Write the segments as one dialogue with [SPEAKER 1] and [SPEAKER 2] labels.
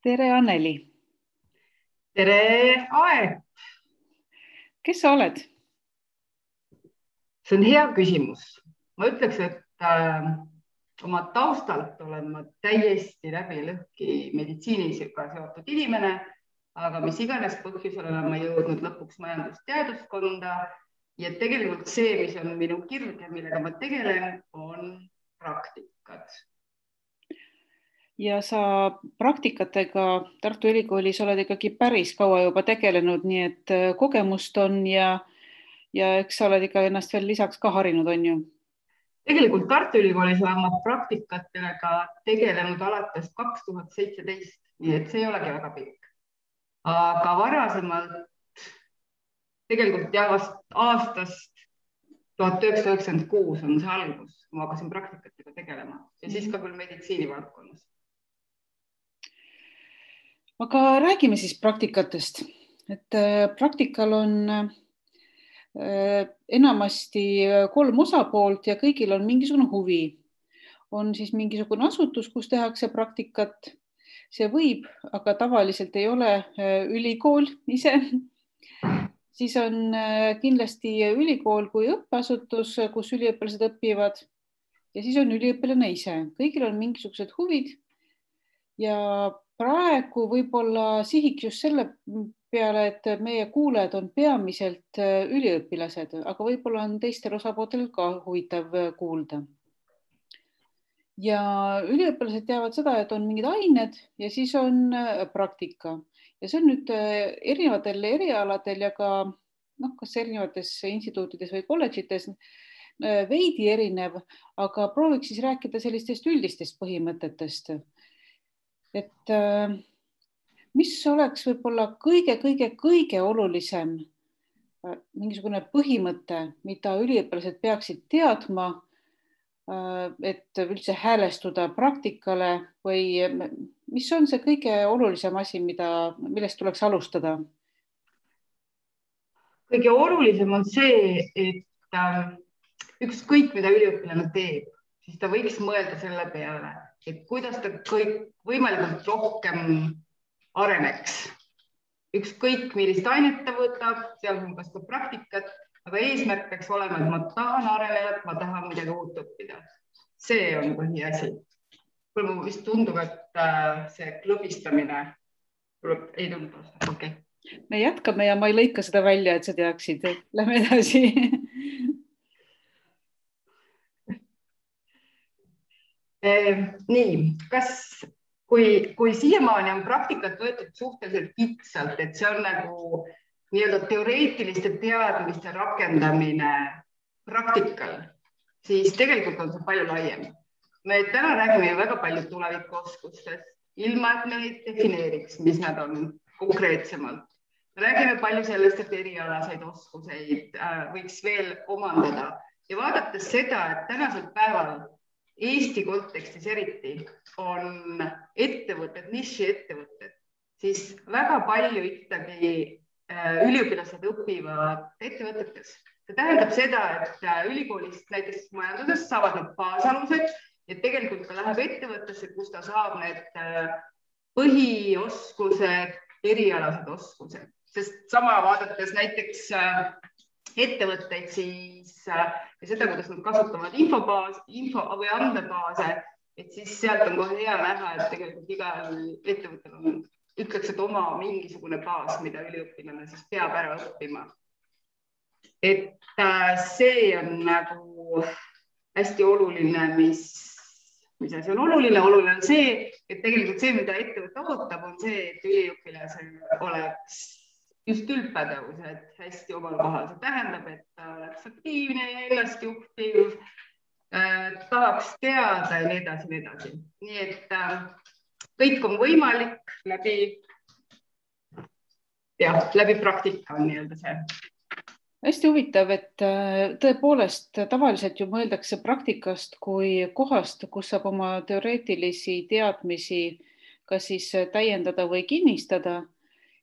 [SPEAKER 1] Tere, Anneli.
[SPEAKER 2] Tere, Ae!
[SPEAKER 1] Kes sa oled?
[SPEAKER 2] See on hea küsimus. Ma ütleks, et oma taustalt olen ma täiesti läbi lõhki meditsiiniga seotud inimene, aga mis iganes põhjusel olen ma jõudnud lõpuks majandusteaduskonda ja tegelikult see, mis on minu kirg ja millega ma tegelen, on praktikad.
[SPEAKER 1] Ja sa praktikatega Tartu Ülikoolis oled ikkagi päris kaua juba tegelenud, nii et kogemust on ja eks sa oled ikka ennast veel lisaks ka harinud, on ju?
[SPEAKER 2] Tegelikult Tartu Ülikoolis olen ma praktikatega tegelenud alates 2017, nii et see ei olegi väga pikk. Aga varasemalt tegelikult aastast 1996 on see algus, kui ma hakkasin praktikatega tegelema ja siis ka küll meditsiinivaldkonnas.
[SPEAKER 1] Aga räägime siis praktikatest. Et praktikal on enamasti 3 osapoolt ja kõigil on mingisugune huvi. On siis mingisugune asutus, kus tehakse praktikat. See võib, aga tavaliselt ei ole ülikool ise. Siis on kindlasti ülikool kui õppeasutus, kus üliõpilased õpivad. Ja siis on üliõpilane ise. Kõigil on mingisugused huvid. Ja praegu võib-olla sihiks just selle peale, et meie kuulajad on peamiselt üliõpilased, aga võib-olla on teistel osapooltel ka huvitav kuulda. Ja üliõpilased teavad seda, et on mingid ained ja siis on praktika. Ja see on nüüd erinevatel erialadel ja ka kas erinevates instituutides või kolledžites veidi erinev, aga prooviks siis rääkida sellistest üldistest põhimõtetest. Et mis oleks võib-olla kõige olulisem mingisugune põhimõte, mida üliõpilased peaksid teadma, et üldse häälestuda praktikale või mis on see kõige olulisem asi, millest tuleks alustada?
[SPEAKER 2] Kõige olulisem on see, et ükskõik mida üliõpilane teeb, siis ta võiks mõelda selle peale, et kuidas ta võimalikult rohkem areneks. Ükskõik millist ainet ta võtab, sealhulgas ka praktikat, aga eesmärk peaks olema, et ma tahan areneda, ma tahan midagi uut õppida. See on põhiasi. Mulle vist tundub, et see klõbistamine ei tundu. Okay.
[SPEAKER 1] Me jätkame ja ma ei lõika seda välja, et sa teaksid. Lähme edasi.
[SPEAKER 2] Nii, kui siiamaani on praktikat võetud suhteliselt kitsalt, et see on nagu nii-öelda teoreetiliste teadmiste rakendamine praktikal, siis tegelikult on see palju laiem. Me täna räägime väga palju tulevikuoskustest, ilma et me neid defineeriks, mis nad on konkreetsemalt. Me räägime palju sellest, et erialaseid oskuseid võiks veel omandada ja vaadates seda, et tänasel päeval Eesti kontekstis eriti on ettevõtted, nišiettevõtted, siis väga palju ikkagi üliõpilased õpivad ettevõtetes. See tähendab seda, et ülikoolist näiteks majandusest saavad nad baasalused ja tegelikult ka läheb ettevõttesse, kus ta saab need põhioskused, erialased oskused. Sest sama vaadates näiteks ettevõtteid siis ja seda, kuidas nad kasutavad info või andmebaase, et siis sealt on kohe hea näha, et tegelikult igal ettevõttel on, ütleks, et oma mingisugune baas, mida üliõpilane siis peab ära õppima. Et see on nagu hästi oluline, mis asi on oluline? Oluline on see, et tegelikult see, mida ettevõte ootab, on see, et üliõpilasel oleks just üldpädevused hästi omal kohal. See tähendab, et ta oleks aktiivne, ennast juhtiv, tahaks teada ja nii edasi. Nii et kõik on võimalik läbi praktika on nii-öelda see.
[SPEAKER 1] Hästi huvitav, et tõepoolest tavaliselt ju mõeldakse praktikast kui kohast, kus saab oma teoreetilisi teadmisi kas siis täiendada või kinnistada.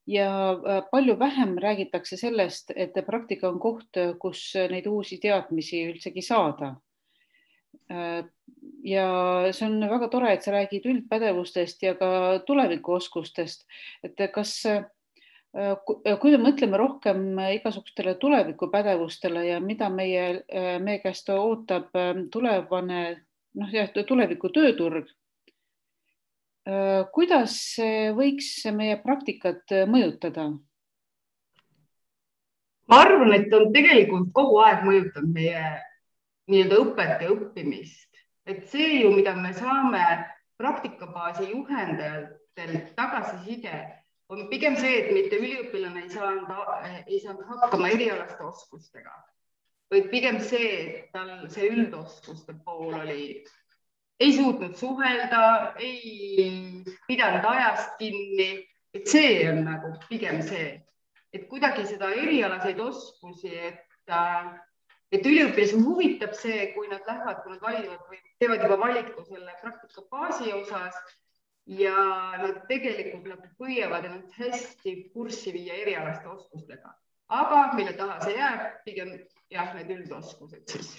[SPEAKER 1] Ja palju vähem räägitakse sellest, et praktika on koht, kus neid uusi teadmisi üldsegi saada. Ja see on väga tore, et sa räägid üldpädevustest ja ka tulevikuoskustest. Et kas, kui me mõtleme rohkem igasugustele tulevikuppädevustele ja mida meie käest ootab tulevane, tuleviku tööturg, kuidas võiks meie praktikat mõjutada?
[SPEAKER 2] Ma arvan, et on tegelikult kogu aeg mõjutanud meie nii-öelda õpet ja õppimist. Et see ju, mida me saame praktikabaasi juhendajatelt tagasiside, on pigem see, et mitte üliõpilane ei saanud hakkama erialaste oskustega, vaid pigem see, et tal see üldoskuste pool ei suutnud suhelda, ei pidanud ajast kinni, et see on nagu pigem see, et kuidagi seda erialaseid oskusi, et üliõpilasi huvitab see, kui nad lähevad, kui nad valivad või teevad juba valiku selle praktikabaasi osas ja nad tegelikult püüavad ennast hästi kurssi viia erialaste oskustega. Aga mille taha see jääb, pigem jah, need üldoskused siis.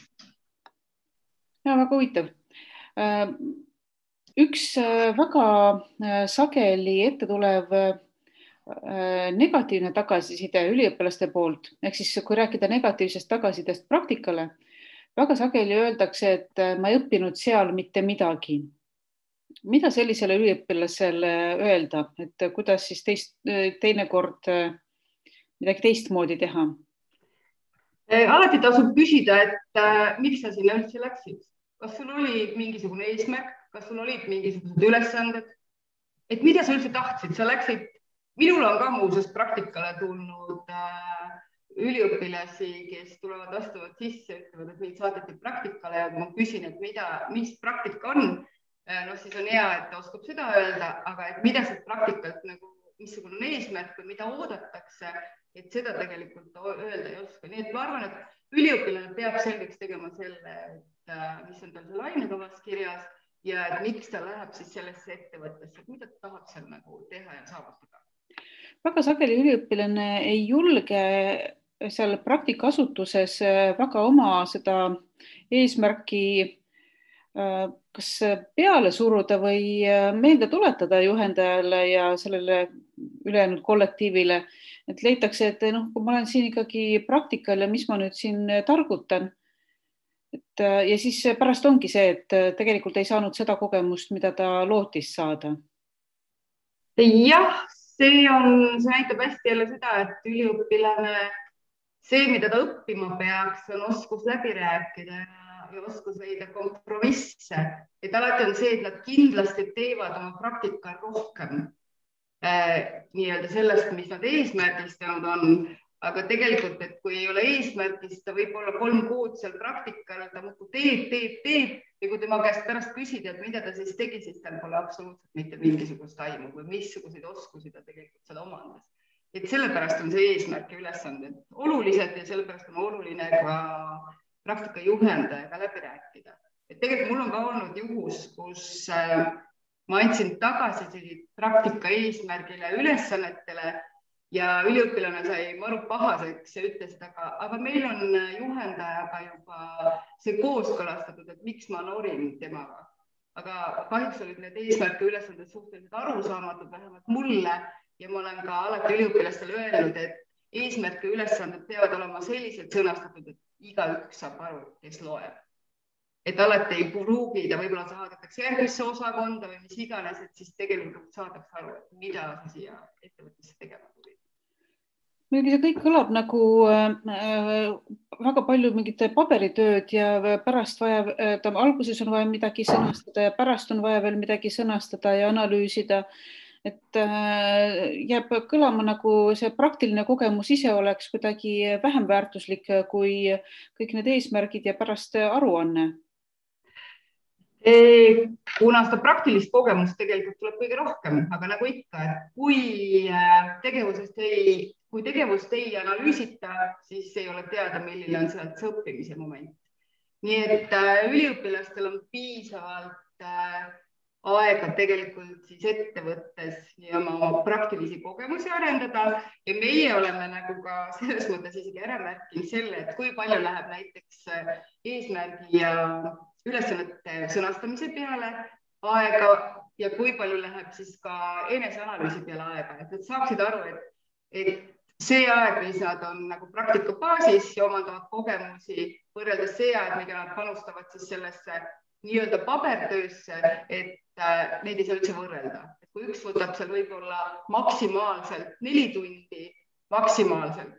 [SPEAKER 1] Ja, väga huvitav. Üks väga sageli ette tulev negatiivne tagasiside üliõpilaste poolt, ehk siis kui rääkida negatiivsest tagasisidest praktikale, väga sageli öeldakse, et ma ei õppinud seal mitte midagi. Mida sellisele üliõpilasele öelda, et kuidas siis teinekord midagi teistmoodi teha?
[SPEAKER 2] Alati tasub küsida, et miks sa sinna üldse läksid? Kas sul oli mingisugune eesmärk? Kas sul olid mingisugused ülesanded? Et mida sa üldse tahtsid? Sa läksid. Minul on ka muuseas praktikale tulnud üliõpilasi, kes tulevad vastavalt sisse, ütlevad, et meid saadeti praktikale ja ma küsin, et mis praktika on, siis on hea, et ta oskab seda öelda, aga et mida see praktikalt missugune on eesmärk või mida oodatakse, et seda tegelikult öelda ei oska. Nii et ma arvan, et üliõpilane peab selgeks tegema selle, et mis on tal seal ainekavas kirjas ja et miks ta läheb siis sellesse ettevõttesse, mida ta tahab seal teha ja saavutada.
[SPEAKER 1] Väga sageli üliõpilane ei julge seal praktikaasutuses väga oma seda eesmärki kas peale suruda või meelde tuletada juhendajale ja sellele ülejäänud kollektiivile, et leitakse, et kui ma olen siin ikkagi praktikal ja mis ma nüüd siin targutan. Ja siis pärast ongi see, et tegelikult ei saanud seda kogemust, mida ta lootis saada.
[SPEAKER 2] Jah, see näitab hästi jälle seda, et üliõpilane, see, mida ta õppima peaks, on oskus läbi rääkida ja oskus leida kompromisse. Et alati on see, et nad kindlasti teevad oma praktika rohkem nii-öelda sellest, mis nad eesmärgistanud on. Aga tegelikult, et kui ei ole eesmärgist, ta võib olla 3 kuud seal praktikal, ta muidu teeb ja kui tema käest pärast küsida, et mida ta siis tegi, siis tal pole absoluutselt mitte mingisugust aimu või missuguseid oskusi ta tegelikult seda omandas. Et sellepärast on see eesmärk ja ülesanded olulised ja sellepärast on oluline ka praktika juhendajaga läbi rääkida. Et tegelikult mul on ka olnud juhus, kus ma andsin tagasi praktika eesmärgile ülesannetele ja üliõpilane sai maru pahaseks ja ütles, aga meil on juhendajaga juba see kooskõlastatud, et miks ma norin temaga. Aga kahjuks olid need eesmärke ülesanded suhteliselt arusaamatud, vähemalt mulle, ja ma olen ka alati üliõpilastele öelnud, et eesmärke ülesanded peavad olema selliselt sõnastatud, et igaüks saab aru, kes loeb. Et alati ei pruugida, võib-olla saadetakse järgmisse osakonda või mis iganes, et siis tegelikult saadaks aru, et mida sa siia ettevõttesse tegema tuli.
[SPEAKER 1] Muidugi see kõik kõlab nagu väga palju mingite paberitööd ja pärast alguses on vaja midagi sõnastada ja pärast on vaja veel midagi sõnastada ja analüüsida. Et jääb kõlama nagu see praktiline kogemus ise oleks kuidagi vähem väärtuslik kui kõik need eesmärgid ja pärast aruanne.
[SPEAKER 2] Kuna seda praktilist kogemust tegelikult tuleb kõige rohkem, aga nagu ikka, et kui tegevust ei analüüsita, siis ei ole teada, milline on sealt see õppimise moment. Nii et üliõpilastel on piisavalt aega tegelikult siis ettevõttes ja oma praktilisi kogemusi arendada ja meie oleme nagu ka selles mõttes isegi ära märkinud selle, et kui palju läheb näiteks eesmärgi ja ülesannete sõnastamise peale aega ja kui palju läheb siis ka eneseanalüüsi peale aega, et nad saaksid aru, et see aeg, mis nad on nagu praktikabaasis ja omandavad kogemusi võrreldes see aeg, mida nad panustavad siis sellesse nii-öelda pabertöösse, et neid ei saa üldse võrrelda. Et kui üks võtab seal võib-olla maksimaalselt 4 tundi, maksimaalselt,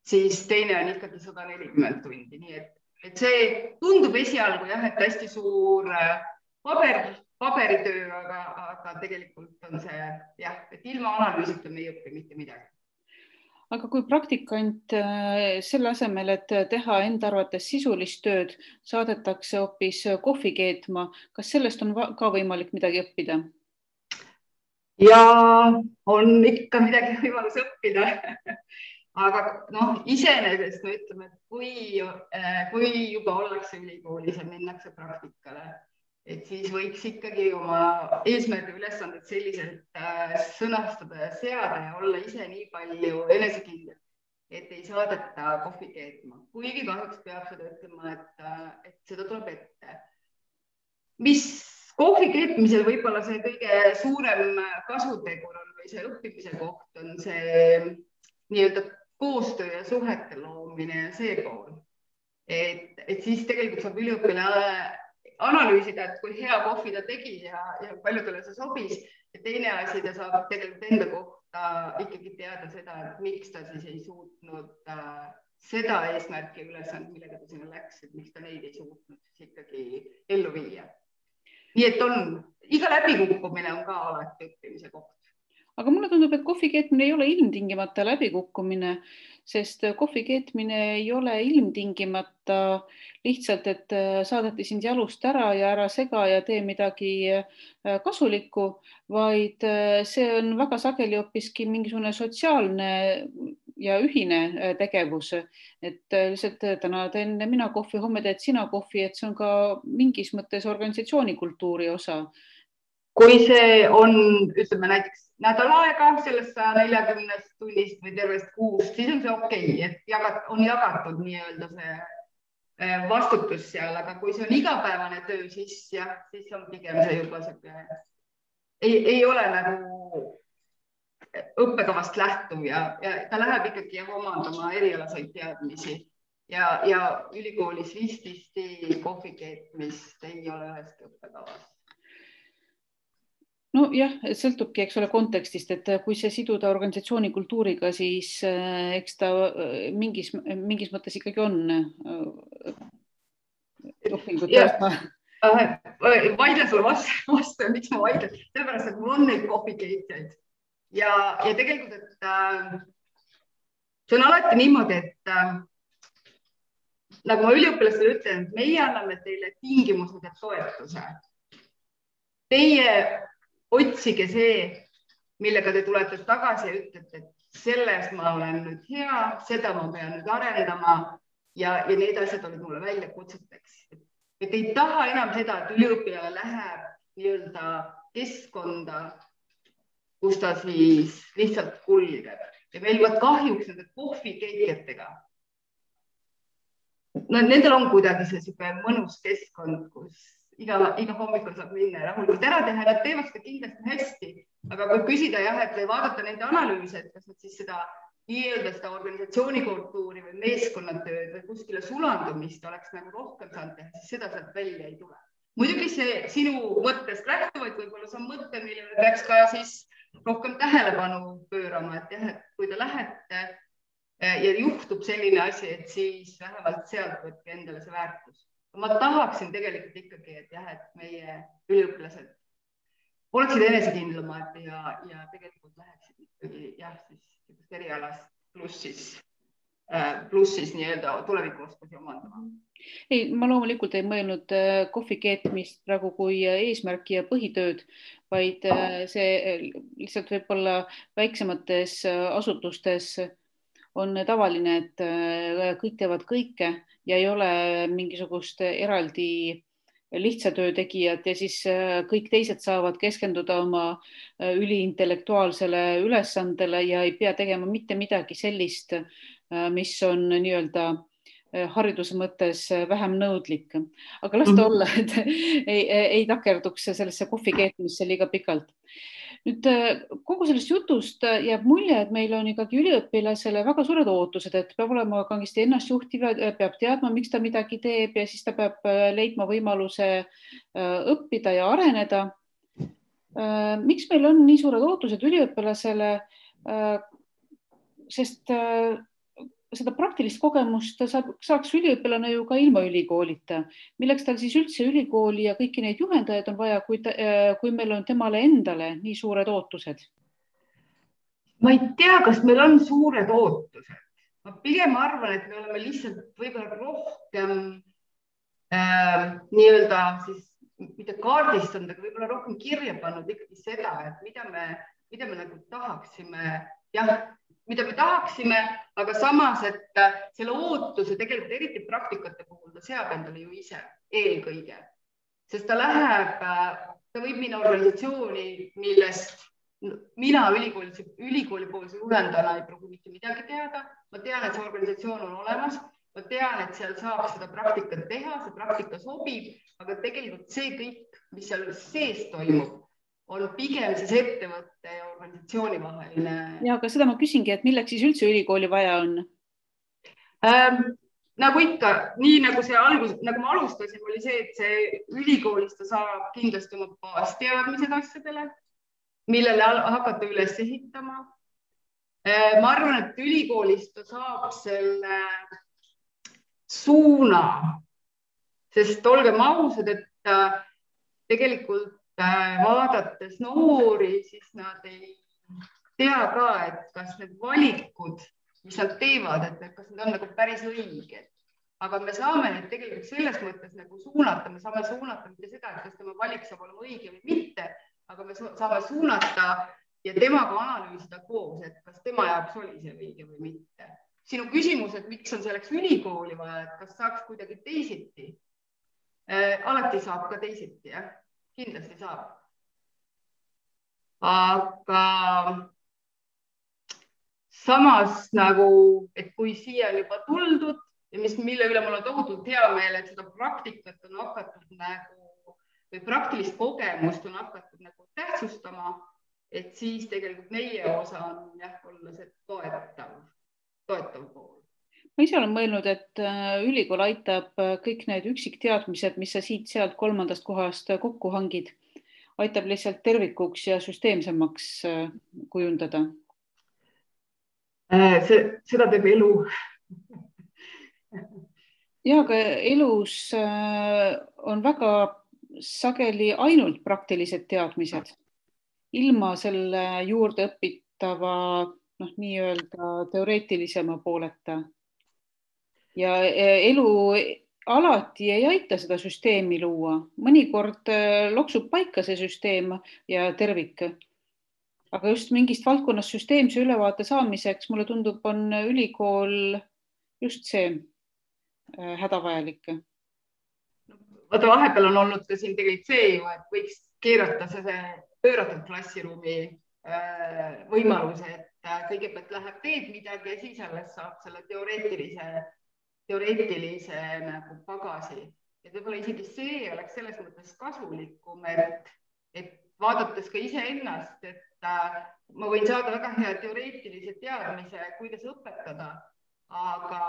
[SPEAKER 2] siis teine on ikkagi 140 tundi. Nii et see tundub esialgu jah, et hästi suur paberitöö, aga tegelikult on see jah, et ilma analüüsita me ei õpi mitte midagi.
[SPEAKER 1] Aga kui praktikant selle asemel, et teha enda arvates sisulist tööd, saadetakse hoopis kohvi keetma, kas sellest on ka võimalik midagi õppida?
[SPEAKER 2] Ja on ikka midagi võimalus õppida. Aga iseenesest me ütleme, et kui juba ollakse ülikoolis ja minnakse praktikale, et siis võiks ikkagi oma eesmärgi ülesanded selliselt sõnastada ja seada ja olla ise nii palju enesekindel, et ei saadeta kohvi keetma. Kuigi kahjuks peab seda ütlema, et seda tuleb ette. Mis kohvi keetmisel võib-olla see kõige suurem kasutegur on või see õppimise koht on see nii-öelda koostöö ja suhete loomine ja see pool. Et siis tegelikult saab üliõpilane analüüsida, et kui hea kohvi ta tegi ja paljudele see sobis. Ja teine asi, ta saab tegelikult enda kohta ikkagi teada seda, et miks ta siis ei suutnud seda eesmärki ülesand, millega ta sinna läks, et miks ta neid ei suutnud siis ikkagi ellu viia. Nii et iga läbikukkumine on ka alati õppimise koht.
[SPEAKER 1] Aga mulle tundub, et kohvi keetmine ei ole ilmtingimata läbikukkumine, sest kohvi keetmine ei ole ilmtingimata lihtsalt, et saadeti sind jalust ära ja ära sega ja tee midagi kasulikku, vaid see on väga sageli hoopiski mingisugune sotsiaalne ja ühine tegevus. Et lihtsalt täna teen mina kohvi, homme teed sina kohvi, et see on ka mingis mõttes organisatsioonikultuuri osa.
[SPEAKER 2] Kui see on, ütleme näiteks nädal aega sellest 140 tunnist või tervest kuust, siis on see okei, et on jagatud nii-öelda see vastutus seal, aga kui see on igapäevane töö, siis on pigem see juba ei ole nagu õppekavast lähtuv ja ta läheb ikkagi omandama erialaseid teadmisi ja ülikoolis vististi kohvi keetmist ei ole üheski õppekavas.
[SPEAKER 1] No jah, sõltubki, eks ole, kontekstist, et kui see siduda organisatsiooni kultuuriga, siis eks ta mingis mõttes ikkagi on õpingute osa.
[SPEAKER 2] Vaidlen sulle vastu, miks ma vaidlen? Sellepärast, et mul on neid kohvikeetjaid ja tegelikult, et see on alati niimoodi, et nagu ma üliõpilastele ütlen, et meie anname teile tingimused ja toetuse. Teie otsige see, millega te tulete tagasi ja ütlete, et selles ma olen nüüd hea, seda ma pean nüüd arendama ja need asjad olid mulle välja kutseteks. Et ei taha enam seda, et üliõpilane läheb nii-öelda keskkonda, kus ta siis lihtsalt kulgeb. Ja meil võt kahjuks nende kohvikeetjatega. Nendel on kuidagi see mõnus keskkond, kus iga hommikul saab minna ja rahulikult ära teha, nad teevad seda kindlasti hästi, aga kui küsida või vaadata nende analüüse, et kas nad siis seda nii-öelda seda organisatsioonikultuuri või meeskonnatööd või kuskile sulandumist oleks nagu rohkem saanud teha, siis seda sealt välja ei tule. Muidugi see sinu mõttest lähtuvaid, võib-olla see on mõte, millele peaks ka siis rohkem tähelepanu pöörama, et kui te lähete ja juhtub selline asi, et siis vähemalt sealt võtke endale see väärtus. Ma tahaksin tegelikult ikkagi, et meie üliõpilased oleksid enesekindlamad ja tegelikult läheksid ikkagi siis erialast pluss siis nii-öelda tulevikuoskusi omandama.
[SPEAKER 1] Ei, ma loomulikult ei mõelnud kohvi keetmist praegu kui eesmärki ja põhitööd, vaid see lihtsalt võib-olla väiksemates asutustes on tavaline, et kõik teevad kõike ja ei ole mingisugust eraldi lihtsa töö tegijat ja siis kõik teised saavad keskenduda oma üliintellektuaalsele ülesandele ja ei pea tegema mitte midagi sellist, mis on nii-öelda hariduse mõttes vähem nõudlik, aga las ta olla, et ei takerduks sellesse kohvi keetmisse liiga pikalt. Nüüd kogu sellest jutust jääb mulje, et meil on ikkagi üliõpilasele väga suured ootused, et peab olema kangesti ennastjuhtiv, peab teadma, miks ta midagi teeb ja siis ta peab leidma võimaluse õppida ja areneda. Miks meil on nii suured ootused üliõpilasele? Sest seda praktilist kogemust saaks üliõpilane ju ka ilma ülikoolita. Milleks tal siis üldse ülikooli ja kõiki neid juhendajaid on vaja, kui meil on temale endale nii suured ootused?
[SPEAKER 2] Ma ei tea, kas meil on suured ootused. Ma pigem arvan, et me oleme lihtsalt võib-olla rohkem nii-öelda siis mitte kaardistanud, aga võib-olla rohkem kirja pannud ikkagi seda, et mida me nagu tahaksime, mida me tahaksime, aga samas, et selle ootuse tegelikult eriti praktikate puhul ta seab endale ju ise eelkõige, sest ta võib minna organisatsiooni, millest mina ülikooli poolse juhendajana ei pruugi mitte midagi teada. Ma tean, et see organisatsioon on olemas, ma tean, et seal saab seda praktikat teha, see praktika sobib, aga tegelikult see kõik, mis seal sees toimub, on pigem siis ettevõtte ja organisatsiooni vaheline.
[SPEAKER 1] Ja, aga seda ma küsingi, et milleks siis üldse ülikooli vaja on?
[SPEAKER 2] Nagu ikka, nii nagu nagu ma alustasin, oli see, et see ülikoolist ta saab kindlasti oma baasteadmised asjadele, millele hakata üles ehitama. Ma arvan, et ülikoolist ta saab selle suuna, sest olgem ausad, et tegelikult vaadates noori, siis nad ei tea ka, et kas need valikud, mis nad teevad, et kas need on nagu päris õiged. Aga me saame need tegelikult selles mõttes nagu suunata, me saame suunata mitte seda, et kas tema valik saab olema õige või mitte, aga me saame suunata ja temaga analüüsida koos, et kas tema jaoks oli see õige või mitte. Sinu küsimus, et miks on selleks ülikooli vaja, et kas saaks kuidagi teisiti? Alati saab ka teisiti, jah. Kindlasti saab. Aga samas nagu, et kui siia on juba tuldud ja mille üle mul on tohutult hea meel, et seda praktikat on hakatud nagu, või praktilist kogemust on hakatud nagu tähtsustama, et siis tegelikult meie osa on olla see toetav pool.
[SPEAKER 1] Ma ise olen mõelnud, et ülikool aitab kõik need üksikteadmised, mis sa siit-sealt kolmandast kohast kokku hangid, aitab lihtsalt tervikuks ja süsteemsemaks kujundada.
[SPEAKER 2] Seda teeb elu.
[SPEAKER 1] Ja, aga elus on väga sageli ainult praktilised teadmised. Ilma selle juurde õpitava nii-öelda teoreetilisema pooleta. Ja elu alati ei aita seda süsteemi luua. Mõnikord loksub paika see süsteem ja tervik. Aga just mingist valdkonnast süsteemse ülevaate saamiseks, mulle tundub, on ülikool just see hädavajalik.
[SPEAKER 2] Vaata, vahepeal on olnud ka siin tegelikult see ju, et võiks keerata see pööratud klassiruumi võimaluse, et kõigepealt läheb teed midagi ja siis alles saab selle teoreetilise nagu pagasi. Ja võib-olla isegi see oleks selles mõttes kasulikum, et vaadates ka iseennast, et ma võin saada väga hea teoreetilise teadmise, kuidas õpetada, aga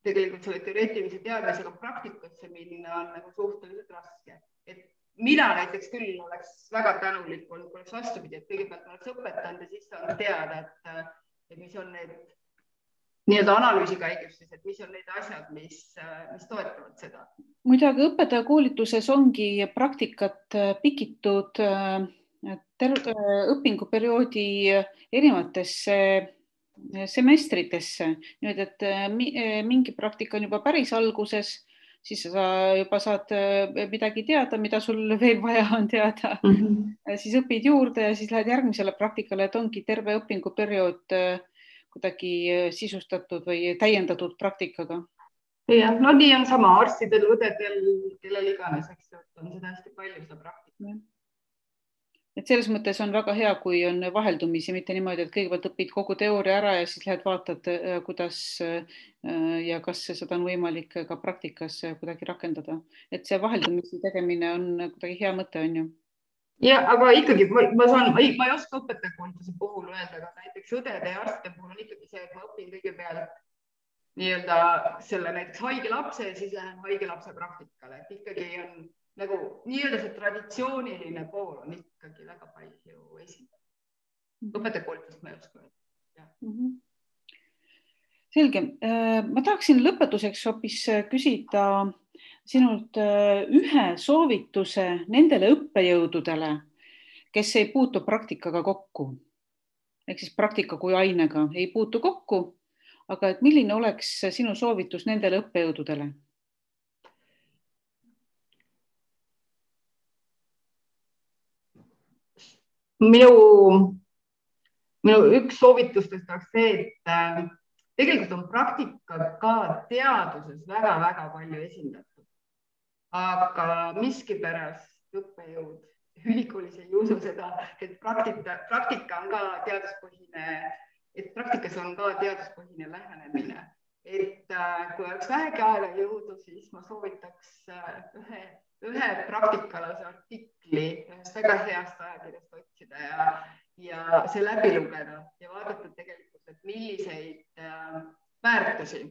[SPEAKER 2] tegelikult selle teoreetilise teadmisega praktikasse minna on nagu suhteliselt raske. Et mina näiteks küll oleks väga tänulik olnud, kui oleks vastupidi, et kõigepealt oleks õpetanud ja siis saan teada, et mis on need nii-öelda analüüsi käigus, et mis on need asjad, mis toetavad seda.
[SPEAKER 1] Muidugi õpetajakoolituses ongi praktikat pikitud õpinguperioodi erinevatesse semestritesse. Nüüd, et mingi praktika on juba päris alguses, siis sa juba saad midagi teada, mida sul veel vaja on teada. Siis õpid juurde ja siis lähed järgmisele praktikale, et ongi terve õpinguperiood kuidagi sisustatud või täiendatud praktikaga.
[SPEAKER 2] Ja, no nii on sama arstidel, õdedel, kellel iganes, eks on seda hästi palju seda praktika.
[SPEAKER 1] et selles mõttes on väga hea, kui on vaheldumisi, mitte niimoodi, et kõigepealt õpid kogu teooria ära ja siis lähed vaatad, kuidas ja kas seda on võimalik ka praktikas kuidagi rakendada. Et see vaheldumisi tegemine on kuidagi hea mõte, on ju.
[SPEAKER 2] Ja, aga ikkagi ma ei oska õpetajakoolituse puhul öelda, aga näiteks õdede ja arstide puhul on ikkagi see, et ma õpin kõigepealt nii-öelda selle näiteks haige lapse ja siis lähen haige lapse praktikale, et ikkagi on nagu nii-öelda see traditsiooniline pool on ikkagi väga palju esindatud. Õpetajakoolitust ma ei oska öelda.
[SPEAKER 1] Selge. Ma tahaksin lõpetuseks hoopis küsida sinult ühe soovituse nendele õppejõududele, kes ei puutu praktikaga kokku. Ehk siis praktika kui ainega ei puutu kokku, aga et milline oleks sinu soovitus nendele õppejõududele?
[SPEAKER 2] Minu üks soovitustest oleks see, et tegelikult on praktika ka teaduses väga-väga palju esindatud. Aga miskipärast õppejõud ülikoolis ei usu seda, et praktika on ka teaduspõhine, et praktikas on ka teaduspõhine lähenemine. Et kui oleks vähegi aega jõudu, siis ma soovitaks ühe praktikalase artikli ühest väga heast ajakirjast otsida ja see läbi lugeda ja vaadata tegelikult, et milliseid väärtusi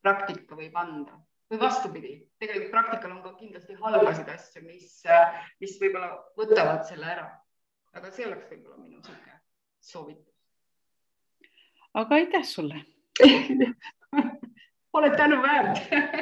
[SPEAKER 2] praktika võib anda. Või vastupidi, tegelikult praktikal on ka kindlasti halbasid asju, mis võib-olla võtavad selle ära. Aga see oleks võib-olla minu soovitus.
[SPEAKER 1] Aga aitäh sulle!
[SPEAKER 2] Oled tänu väärt!